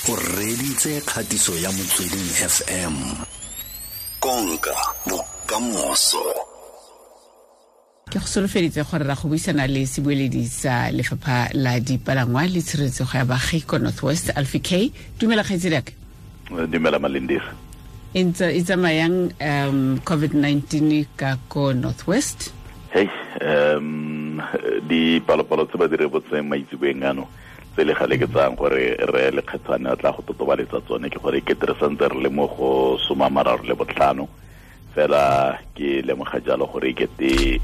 O reditse kgatiso ya Motsweding FM. Konka bokamoso. Ke go solofeditse gore ra go buisana le sebueledi sa lefapha la dipalangwa le tshireletsego ya baagi ko North West, Alfie K. Dumela, kgaitsedi. Dumela, Malindisa. E ntse e tsamayang COVID-19 ka ko North West? Hey, dipalopalo tse ba di rebotseng maitseboeng ano, tse le gale ke tsayang gore re Lekgethwane a tla go totobaletsa tsone, ke gore ke re santse re le mo go 35. Fela ke lemoga jalo gore kete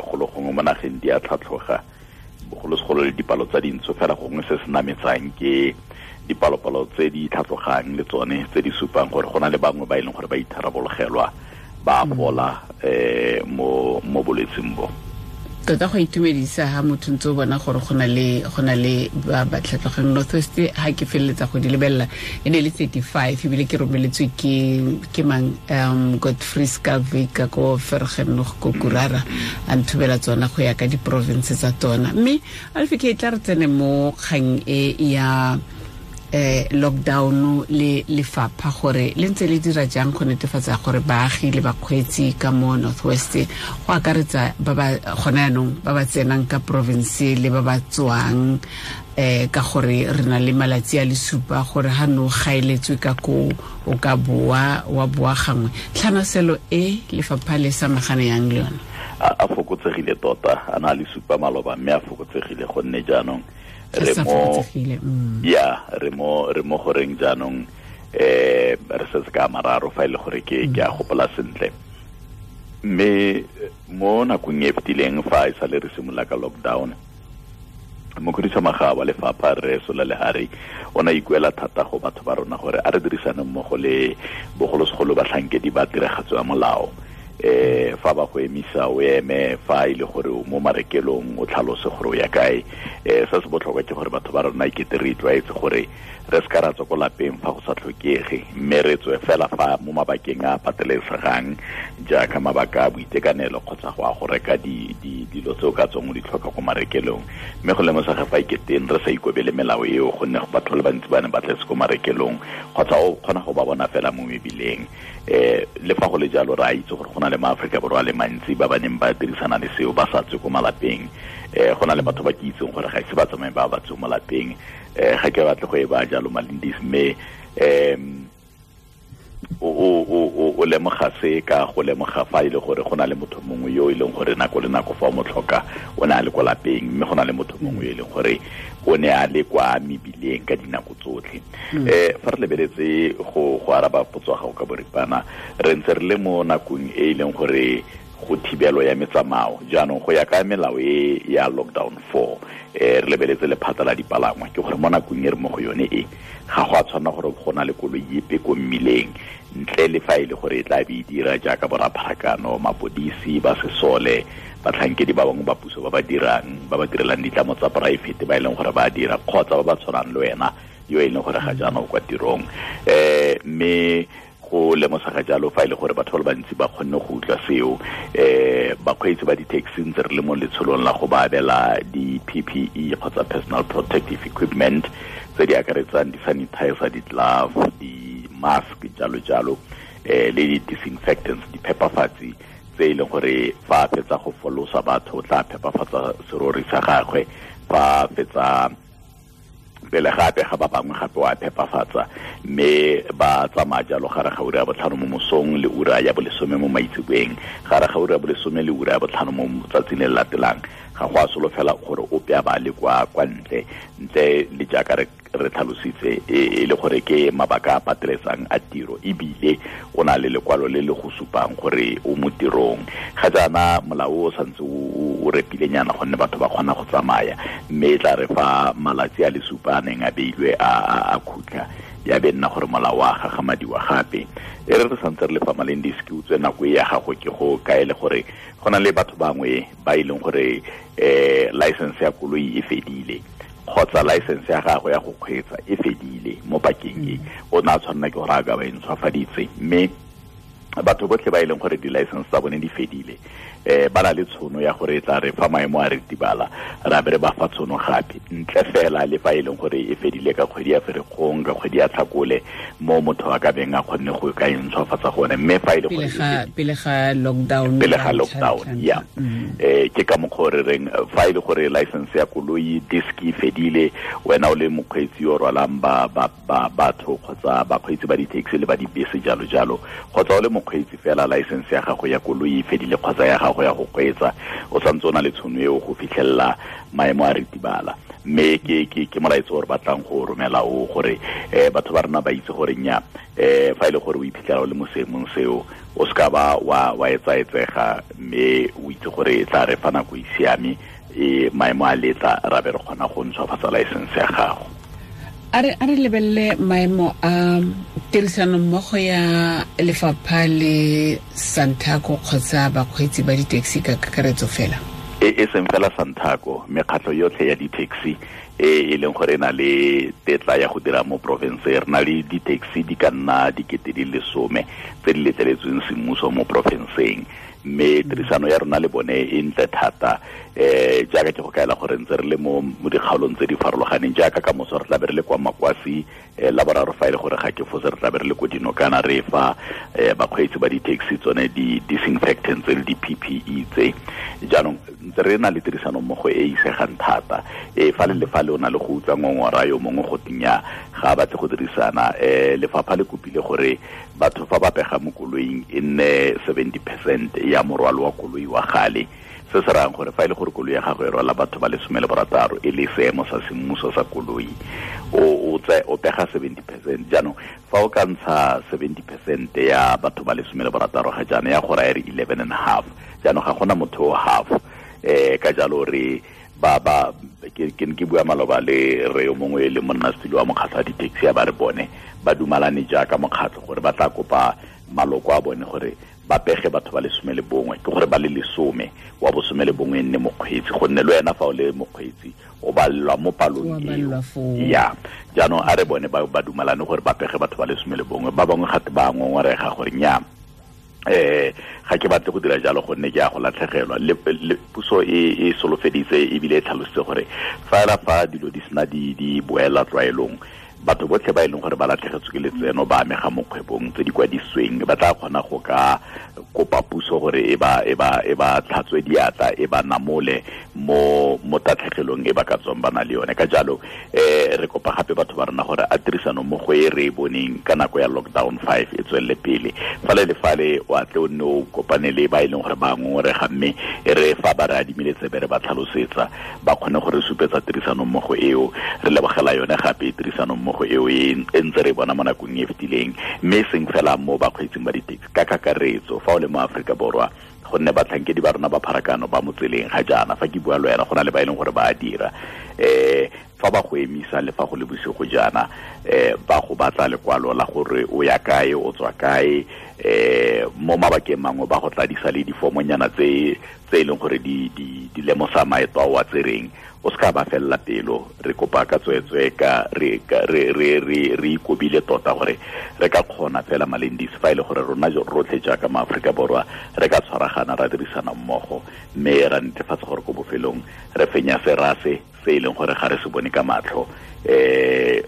golo gongwe mo nageng di a tlhatlhoga, bogolosegolo le dipalo tsa dintsho. Fela gongwe se se nametsang ke dipalopalo tse di tlhatlhogang le tsone tse di supang gore go na le bangwe ba e leng gore ba itharabologelwa, ba fola mo bolwetseng bo. Tota go itumedisa ha motho ntse o bona gore go na le ba ba tlhatlogeng. North West, ha ke feleletsa go di lebelela, e ne le 35, ebile ke romeletswe ke mang, Godfrey Scalvic ka ko Vergenoeg ko Kurara, a nthubela tsona go ya ka di-province tsa tsona. Mme Alfe ke tla re tsene mo kgang e ya lockdown le lefapha, gore le ntse le dira jang go netefatsa gore baagi le bakgweetsi ka mo North West, go akaretsa ba ba gona yaanong ba ba tsenang ka province le ba ba tswang, ka gore re na le malatsi a le supa gore ha no gaeletswe ka ko o ka boa wa boa gangwe. Tlhanaselo e lefapha le samagane yang le yone? A fokotsegile tota. A na le supa maloba, mme a fokotsegile gonne jaanong re mo ya re mo goreng jaanong re setse ka mararo, fa e le gore ke a gopola sentle. Mme mo nakong e fetileng, fa e sale re simolola ka lockdown, mokhuduthamaga wa lefapha, re Sola Lehari, o ne a ikuela thata go batho ba rona gore a re dirisane mmogo le bogolosegolo batlhankedi ba tiragatso ya molao. Fa ba go emisa, o eme. Fa e le gore o mo marekelong, o tlhalose gore o ya kae. Se se botlhokwa ke gore batho ba rona ikete re itlwaetse gore re se ka ra tswa ko lapeng fa go sa tlhokege, mme re tswe fela fa mo mabakeng a patelesegang, jaaka mabaka a boitekanelo kgotsa go a go reka dilo tse o ka tswang o di tlhoka ko marekelong. Mme go lemosega fa iketeng re sa ikobele melao eo, gonne batho ba le bantsi ba ne ba tletse ko marekelong kgotsa o kgona go ba bona fela mo mebileng. Le fa go le jalo, re a itse gore go na le maAforika Borwa a le mantsi ba ba neng ba dirisana le seo, ba sa tswe ko malapeng. Go na le batho ba ke itseng gore ga ise ba tsamaye ba ba tswe mo lapeng. Ga ke batle go e ba jalo, Malindis, mme o lemoga se ka go lemoga fa e le gore go na le motho mongwe yo e leng gore nako le nako fa o mo tlhoka o ne a le kwa lapeng, mme go na le motho mongwe yo e leng gore o ne a le kwa mebileng ka dinako tsotlhe. Fa re lebeletse go araba potso ya gago ka boripana, re ntse re le mo nakong e e leng gore go thibelo ya metsamao jaanong go ya ka melao e ya lockdown 4. Re lebeletse lephata la dipalangwa, ke gore mo nakong e re mo go yone e, ga go a tshwanela gore go na le koloi epe ko mmileng, ntle le fa e le gore e tla be e dira jaaka borapharakano, mapodisi, ba sesole, batlhankedi ba bangwe ba puso ba ba dirang, ba ba direlang ditlamo tsa poraefete ba e leng gore ba dira, kgotsa ba ba tshwanang le wena yo e leng gore ga jaana o kwa tirong. Mme go lemosega jalo fa e le gore batho ba le bantsi ba kgonne go utlwa seo. Bakgweetsi ba di-taxi, ntse re le mo letsholong la go ba abela di-PPE kgotsa personal protective equipment, tse di akaretsang di-sanitizer, di-glove, di-mask, jalo jalo, le di-disinfectants, diphepafatsi tse e leng gore fa a fetsa go folosa batho o tla phepafatsa serori sa gagwe fa a fetsa pele gape ga ba bangwe gape wa phepafatsa. Mme ba tsamaya jalo gare ga ura ya 5 mo mosong le ura ya 10 mo maitseboeng, gare ga ura ya 10 le ura ya 5 mo tsatsing le le latelang. Ga go a solofela gore ope a ba le kwa ntle, ntle le jaaka re tlhalositse e le gore ke mabaka a pateletsang a tiro, ebile o na le lekwalo le le go supang gore o mo tirong. Ga jaana molao o santse o repilenyana gonne batho ba kgona go tsamaya, mme e tla re fa malatsi a le supa a neng a beilwe a khutla, ya be nna gore molao wa gagamadiwa gape. E re re santse re le fa, Malendis, ke utswe nako e ya gago ke go kaele gore go na le batho bangwe ba e leng gore license ya koloi e fedile kgotsa license ya gagwe ya go kgweetsa e fedile mo pakeng e. O ne a tshwanela ke gore a ka ba e ntshwafaditse, mme Batho botlhe ba e leng gore di-license tsa bone di fedile, ba na le tshono ya gore e tla re fa maemo a ritibala ra be re ba fa tshono gape, ntle fela le fa e leng gore e fedile ka kgwedi ya Ferikgong, ka kgwedi ya Tlhakole, mo motho a ka beng a kgonne go ka e ntshwafatsa gone. Mme fa e le gore pele ga lockdown, pele ga lockdown, ya ke ka mokgwa o re reng fa e le gore license ya koloi disk e fedile, wena o le mokgweetsi yo rwalang ba batho kgotsa bakgweetsi ba di-taxi le ba dibese jalo jalo, kgotsa o le mokgweetsi fela license ya gago ya koloi e fedile kgotsa ya gago ya go kgweetsa, o santse o na le tshono eo go fitlhelela maemo a ritibala. Mme ke molaetso o re batlang go romela o gore batho ba rona ba itse gore nya fa e le gore o iphitlhela o le mo seemong seo, o seka ba wa etsaetsega, mme o itse gore e tla re fa nako e siame, maemo a letla, ra be re kgona go ntshwafatsa license ya gago. A re lebelele maemo a tirisanommogo ya lefapha le Santaco kgotsa bakgweetsi ba di-taxi ka kakaretso fela. E seng fela Santaco, mekgatlho yotlhe ya di-taxi e leng gore e na le tetla ya go dira mo province. Re na le di-taxi di ka nna 10,000 tse di letleletsweng semmuso mo provinceng, mme tirisano ya rona le bone e ntle thata. Jaaka ke go kaela gore ntse re le mo dikgaolong tse di farologaneng, jaaka ka moso re tla be re le kwa Makwasi, la boraro fa e le gore ga ke fose re tla be re le ko Dinokana, re fa bakgweetsi ba di-taxi tsone di-disinfectants le di-PPE tse. Jaanong ntse re na le tirisano mmogo e isegang thata. Fa le fa le o na le go utlwa ngongora yo mongwe go tinya ga a batle go dirisana, lefapha le kopile gore batho fa ba pega mo koloing e nne 70% ya morwalo wa koloi wa gale. Se se rayang gore fa e le gore koloi ya gago e rwala batho ba 16 e le seemo sa semmuso sa koloi, o pega 70%. Jaanong fa o ka ntsha 70% ya batho ba 16 ga jaana, ya go raya re 11.5. Jaanong ga gona motho o half. Ka jalo re ba ke bua maloba le re yo mongwe le monnasetulo wa mokgatlho wa di-taxi, ya ba re bone ba dumalane jaaka mokgatlho gore ba tla kopa maloko a bone gore ba pege batho ba 11, ke gore ba le 10, wa bo 11 e nne mokgweetsi, gonne le wena fa o le mokgweetsi o balelwa mo palong eo. Ya jaanong a re bone ba dumalane gore ba pege batho ba 11. Ba bangwe gate ba ngongorega gore nya ga ke batle go dira jalo gonne ke a go latlhegelwa. Le puso e solofeditse ebile e tlhalositse gore fela fa dilo di sena di boela tlwaelong, batho botlhe ba e leng gore ba latlhegetswe ke letseno ba amega mo kgwebong tse di kwadisitsweng, ba tla kgona go ka kopa puso gore e ba tlhatswe diatla, e ba namole mo tatlhegelong e ba ka tswang ba na le yone. Ka jalo re kopa gape batho ba rona gore a tirisano mmogo e re e boneng ka nako ya lockdown 5 e tswelele pele. Fale le fale o atle o nne o kopane le ba e leng gore ba ngongorega, mme e re fa ba re adimile tsebe re ba tlhalosetsa, ba kgone gore supetsa tirisano mmogo eo. Re lebogela yone gape tirisano mmogo eo e ntse re bona mo nakong e fetileng, mme e seng fela mo bakgweetsing ba di-taxi ka kakaretso fa o le mo Aforika Borwa, gonne batlhankedi ba rona ba pharakano ba mo tseleng ga jaana. Fa ke bua le wena go na le ba e leng gore ba a dira, fa ba go emisa le fa go le bosigo jaana, ba go batla lekwalo la gore o ya kae, o tswa kae, mo mabakeng mangwe ba go tladisa le difomonyana tse e leng gore di lemosa maeto a o a tsereng. O seka ba felela pelo, re kopa ka tsweetswe ka re ikobile tota gore re ka kgona fela Malendisi fa e le gore rona rotlhe jaaka maAforika Borwa re ka tshwaragana ra dirisana mmogo, mme ra netefatsa gore ko bofelong re fenya serase se e leng gore ga re se bone ka matlho.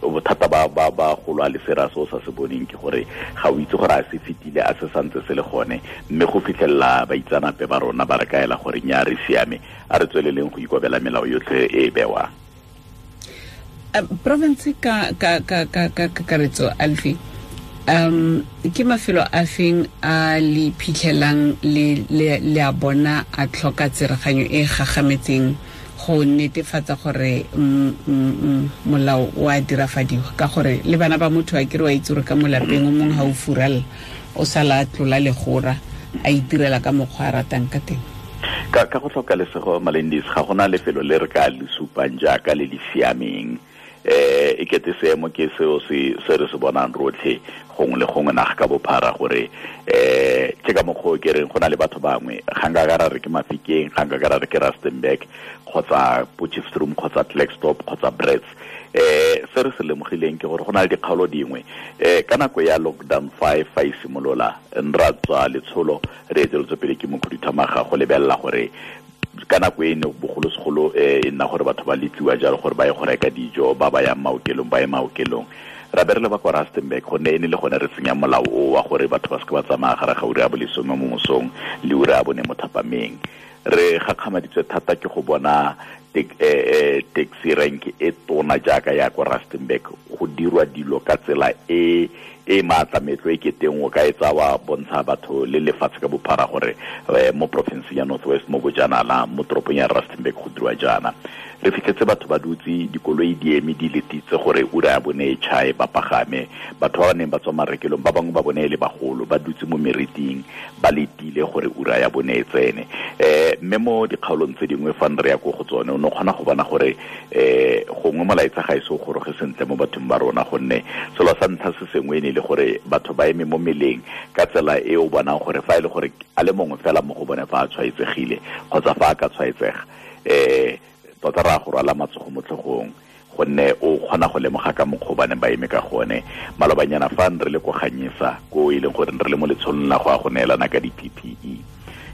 Bothata ba go lwa le serase o sa se boneng ke gore ga o itse gore a se fetile, a se santse se le gone, mme go fitlhelela baitsanape ba rona ba re kaela gore nya re siame, a re tsweleleng go ikobela melao yotlhe e bewang. Province ka kakaretso, Alfie, ke mafelo a feng a le phitlhelang le a bona a tlhoka tsereganyo e gagametseng go netefatsa gore molao o a dirafadiwa? Ka gore le bana ba motho a kere wa itse gore ka mo lapeng o mongwe ga o furalla, o sala a tlola legora a itirela ka mokgwa a ratang ka teng. Ka go tlhoka lesego, Malendisi, ga gona lefelo le re ka le supang jaaka le le siameng. E kete seemo ke seo se re se bonang rotlhe gongwe le gongwe naga ka bophara, gore ke ka mokgwa o ke reng go na le batho bangwe ga nka ka ra re ke Mafikeng, ga nka ka ra re ke Rustenburg kgotsa Potchefstroom kgotsa Klerksdorp kgotsa Brits, Se re se lemogileng ke gore go na le dikgaolo dingwe ka nako ya lockdown 5 fa e simolola ra tswa letsholo re eteletswe pele ke mokhuduthamaga go lebelela gore ka nako e ne bogolosegolo e nna gore batho ba letliwa jalo gore ba ye go reka dijo, ba ba yang maokelong ba ye maokelong. Ra be re le ba kwa Rustenburg gonne e ne le gone re tsenya molao o wa gore batho ba seke ba tsamaya gare ga ura ya bolesome mo mosong le ura ya bone mo thapameng. Re gakgamaditswe thata ke go bona taxi rank e tona jaaka ya kwa Rustenburg go dirwa dilo ka tsela e e maatlametlo e keteng o ka e tsa wa bontsha batho le lefatshe ka bophara gore mo porofenseng ya North West mo bojanala mo toropong ya Rustenburg go dirwa jaana. Re fitlhetse batho ba dutse dikoloi di eme di letitse gore ura ya bone e tšhae ba pagame. Batho ba ba neng ba tswa marekelong ba bangwe ba bone e le bagolo ba dutse mo meriting ba letile gore ura ya bone e tsene. Mme mo dikgaolong tse dingwe fa re ya ko go tsone o ne o kgona go bona gore gongwe molaetsa ga e se o goroge sentle mo bathong ba rona, gonne selo sa ntlha se sengwe e ne e le gore batho ba eme mo meleng ka tsela e o bonang gore fa e le gore a le mongwe fela mo go bone fa a tshwaetsegile kgotsa fa a ka tshwaetsega tota ra go rwala matsogo mo tlhogong, gonne o kgona go lemoga ka mokgwa o ba neng ba eme ka gone. Malobanyana fa re le ko Ganyesa ko e leng gore re le mo letsholong la go ya go neelana ka di-PPE,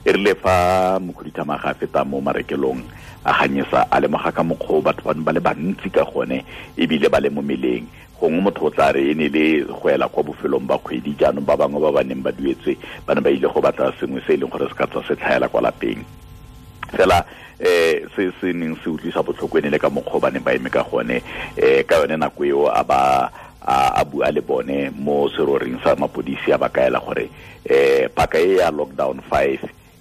e rile fa mokhuduthamaga a feta mo marekelong a Ganyesa a lemoga ka mokgwa o batho bano ba le bantsi ka gone ebile ba le mo meleng. Gongwe motho o tla re e ne le go ela kwa bofelong ba kgwedi, jaanong ba bangwe ba ba neng ba duetswe ba ne ba ile go batla sengwe se e leng gore se ka tswa se tlhaela kwa lapeng. Fela se se neng se utlwisa botlhoko e ne le ka mokgwa o ba neng ba eme ka gone. Ka yone nako eo a ba a bua le bone mo seroring sa mapodisi a ba kaela gore paka e ya lockdown 5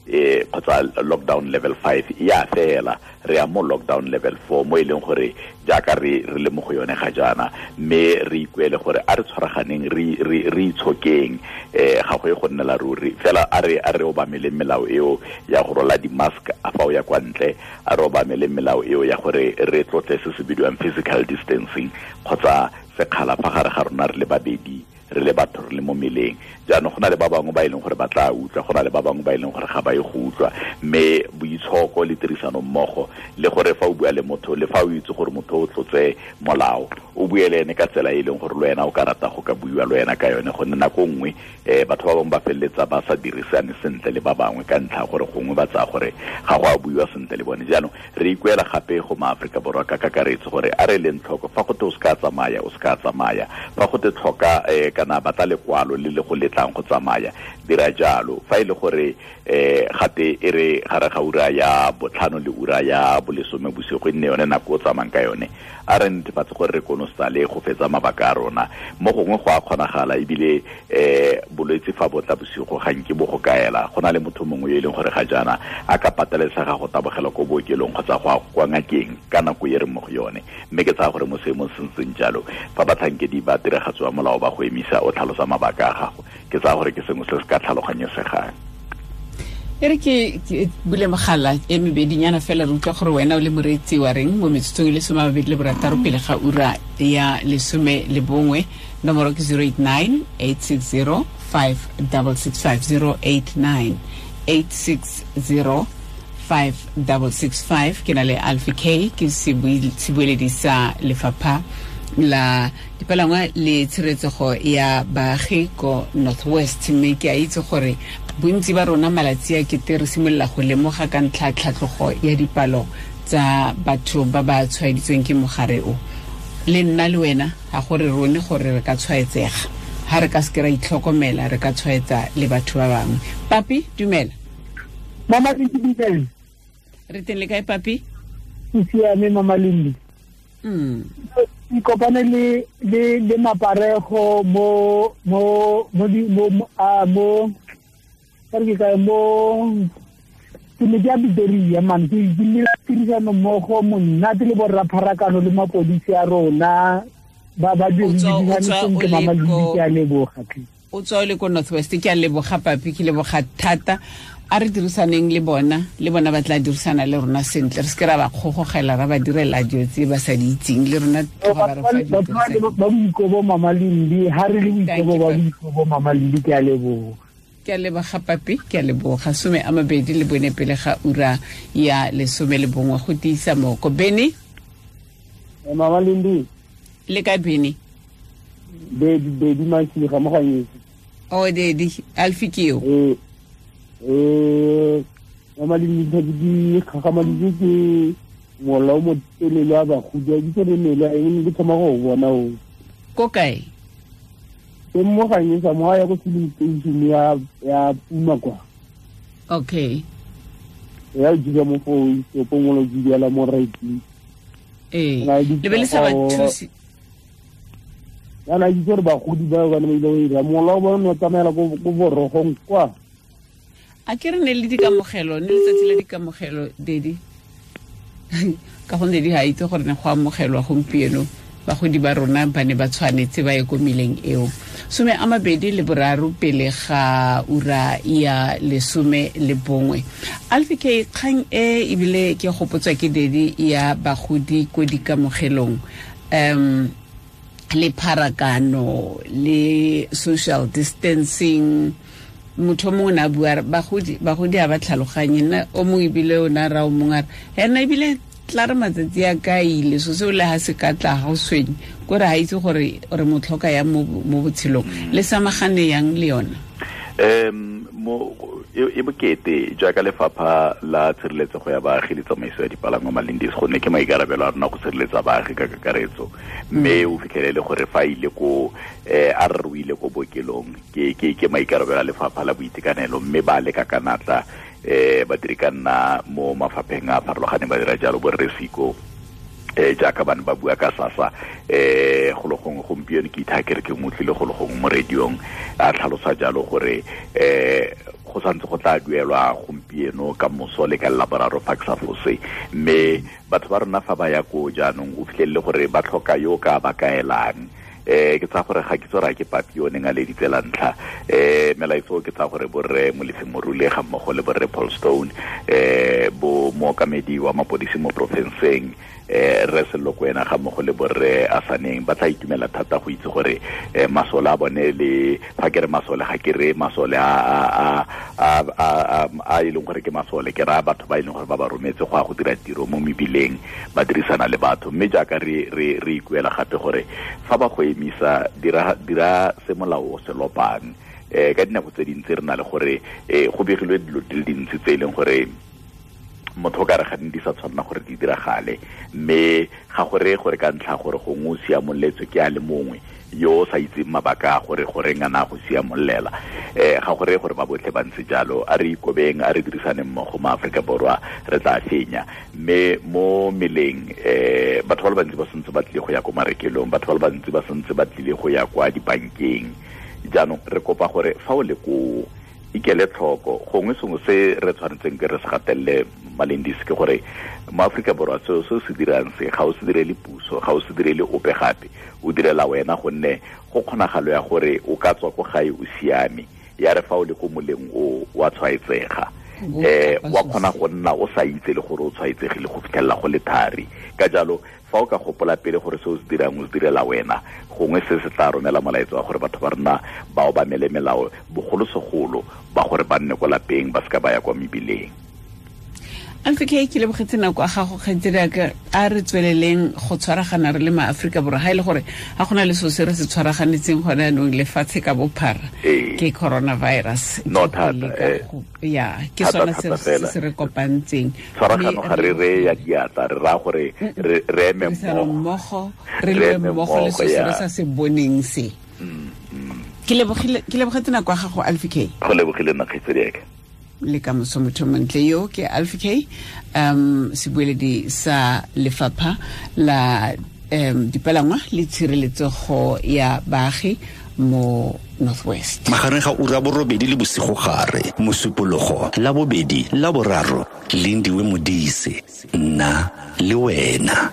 kgotsa lockdown level 5 ya fela, re ya mo lockdown level 4 mo e leng gore jaaka re le mo go yone ga jaana, mme re ikuele gore a re tshwaraganeng re itshokeng, ga go ye go nnela ruri fela. A re obameleng melao eo ya go rola di-mask a fa o ya kwa ntle, a re obameleng melao eo ya gore re tlotle se se bidiwang physical distancing kgotsa sekgala fa gare ga rona re le babedi, re le batho re le mo meleng. Jaanong go na le ba bangwe ba e leng gore ba tla utlwa, go na le ba bangwe ba e leng gore ga ba ye go utlwa, mme boitshoko le tirisano mmogo le gore fa o bua le motho le fa o itse gore motho o tlotse molao o bue le ene ka tsela e leng gore le wena o ka rata go ka buiwa le wena ka yone, gonne nako nngwe batho ba bangwe ba feleletsa ba sa dirisane sentle le ba bangwe ka ntlha gore gongwe ba tsaya gore ga go a buiwa sentle le bone. Jaanong re ikuela gape go maAforika Borwa ka kakaretso gore a re leng tlhoko fa gote o se ka tsamaya, o se ka tsamaya, fa gote tlhoka kana batla lekwalo le le go letlang go tsamaya, dira jalo. Fa e le gore gate e re gare ga ura ya 5 le ura ya 10 bosigo e nne yone nako o tsamayang ka yone, a re netefatse gore re konosale go fetsa mabaka a rona. Mo gongwe go a kgonagala ebile bolwetse fa bo tla bosigo ga nke bo go kaela, go na le motho mongwe yo e leng gore ga jaana a ka patelesega go tabogela ko bookelong kgotsa go ya kwa ngakeng ka nako e re mo go yone. Mme ke tsaya gore mo seemong se ntseng jalo fa batlhankedi ba tiragatso ya molao ba go emisa o tlhalosa mabaka a gago, ke tsaya gore ke sengwe se se ka tlhaloganyesegang. E re ke bule mogala e mebedinyana fela re utlwa gore wena o le moreetsi wa reng mo metsotsong e le 26 pele ga ura ya 11. Nomoro ke 089 860 5665, 089 860 5665. Ke na le Alfie K, ke sebueledi sa lefapha la dipalangwa le tshireletsego ya baagi ko North West. Mme ke a itse gore bontsi ba rona malatsi a kete re simolola go lemoga ka ntlha tlhatlhogo ya dipalo tsa batho ba ba tshwaeditsweng ke mogare o. Le nna le wena ga gore rone gore re ka tshwaetsega, ga re ka seke ra itlhokomela re ka tshwaetsa le batho ba bangwe. Papi, dumela. Mama Lindi. Re teng le kae, Papi? Ke siame, Mama Lindi. Ke kopane le maparego mo mo mo mo mo ke kae mo ke ne ke a Pretoria man, ke nnile tirisano mmogo monate le borra pharakano le mapodisi a rona ba ba dirisane sentle. Mama Lindi, ke a leboga. O tswa o le ko North West, ke a leboga Papi, ke leboga thata. A re dirisaneng le bona, le bona ba tla dirisana le rona sentle, re seke ra ba kgogogela ra ba direla dilo tse ba sa di itseng le rona tloga ba re fa dilo ba boikobo. Mama Lindi, ha re le boikobo ba boikobo. Mama Lindi, ke a leboga. Ke a leboga Papi, ke a leboga. 24 pele ga ura ya 11 go tiisa moko. Bene. Mama Lindi. Le ka bene? Dedi Masiga mo Ganyesa. Oh dedi Alfi ke yo. Mama Lindi di kgagamaditswe ke mola o motelele wa bagodi a kitse le mele a eng ke thoma go bona o. Ko kae? Ke mo Ganyesa mo ya go filling station ya Puma kwa. Okay. Ya dira mo fo o pongolo di la mo right. Le be le sa ba thusi. Ya na itse gore bagodi ba ba ne ba ile go mola o bona o tsamaela ko borogong kwa. A ke re ne le dikamogelo, ne letsatsi la dikamogelo dedi. Ka gonne di ha itse gore ne go amogelwa gompieno bagodi ba rona ba ne ba tshwanetse ba ye ko meleng eo. 23 pele ga ura ya 11. Alfi K kgang e ebile ke gopotswa ke dedi ya bagodi ko dikamogelong. Le pharakano le social distancing motho mongwe na bua bagodi a ba tlhaloganye nna o mongwe ebile o na ra o mongwe a re ena ebile tla re matsatsi a ka ile so seo le ha se ka tla ga o tshwenye kore ga itse gore re mo tlhoka yang mo botshelong le samagane yang le yona. Mo e bokete jaaka lefapha la tshireletsego ya baagi le tsamaiso ya dipalangwa Malindis gonne ke maikarabelo a rona go sireletsa baagi ka kakaretso mme o fitlhelele gore fa ile ko a re o ile ko bookelong ke maikarabelo a lefapha la boitekanelo mme ba leka ka natla badiri ka nna mo mafapheng a farologaneng ba dira jalo borre Siko jaaka bane ba bua ka SASSA go le gongwe gompieno ke itha ke re ke motlile go le gongwe mo radiong a tlhalosa jalo gore go santse go tla duelwa gompieno ka moso le ka laboraro fa ke sa fose mme batho ba rona fa ba ya ko jaanong o fitlhelele gore ba tlhoka yo ka ba kaelang. Ke tsa gore ga ke tsora ke papi o neng a leditse la ntlha melaetso ke tsa gore borre Molefi Morule ga mmogo le borre Paul Stone bo mookamedi wa mapodisi mo porofenseng re Sello Kwena ga mmogo le borre Asaneng ba tla itumela thata go itse gore masole a bone le fa ke re masole ga ke re masole a e leng gore ke masole ke raya batho ba e leng gore ba ba rometse go ya go dira tiro mo mebileng ba dirisana le batho mme jaaka re ikuela gape gore fa ba go emisa dira se molao o se lopang ka dinako tse dintsi re na le gore go begilwe dilo di le dintsi tse e leng gore motho ka re ga di sa tshwanela gore di diragale mme ga gore gore ka ntlha gore gongwe o siamoletswe ke a le mongwe yo o sa itseng mabaka a gore goreng a na go siamollela ga gore gore ba botlhe ba ntse jalo a re ikobeng a re dirisane mmogo mo Aforika Borwa re tla fenya mme mo meleng batho ba le bantsi ba santse ba tlile go ya ko marekelong batho ba le bantsi ba santse ba tlile go ya kwa dibankeng jaanong re kopa gore fa o le koo ikele tlhoko gongwe sengwe se re tshwanetseng ke re se gatelele Malindis ke gore mo Aforika Borwa seo se se dirang se ga o se direle puso ga o se direle ope gape o direla wena gonne go kgonagalo ya gore o ka tswa ko gae o siame ya re fa o le ko moleng o wa tshwaetsega wa kgona go nna o sa itse le gore o tshwaetsegile go fitlhelela go le thari ka jalo fa o ka gopola pele gore se o se dirang o se direla wena gongwe se se tla romela molaetso wa gore batho ba rona ba obamele melao bogolosegolo ba gore ba nne ko lapeng ba seka ba ya kwa mebileng. Alfi K ke lebogetse nako a gago kgaitsedi ka a re tsweleleng go tshwaragana re le maAforika Borwa ga e le gore ga gona le seo se re se tshwaraganetseng gone anong lefatshe ka bophara ke coronavirus no thata ya ke sona se re kopantseng tshwaragano ga re re ya diatla re raya gore re eme mmogo re lwe mmogo le seo se re sa se boneng se. Ke lebogetse nako ya gago Alfi K. Go lebogile nna kgaitsedi ka le ka moso motho montle yo ke Alfi K sebueledi sa lefapha la dipalangwa le tshireletsego ya baagi mo Northwest. Magareng ga ura 8 le bosigo gare mosupologo la bobedi la boraro Lindiwe Modise nna le wena.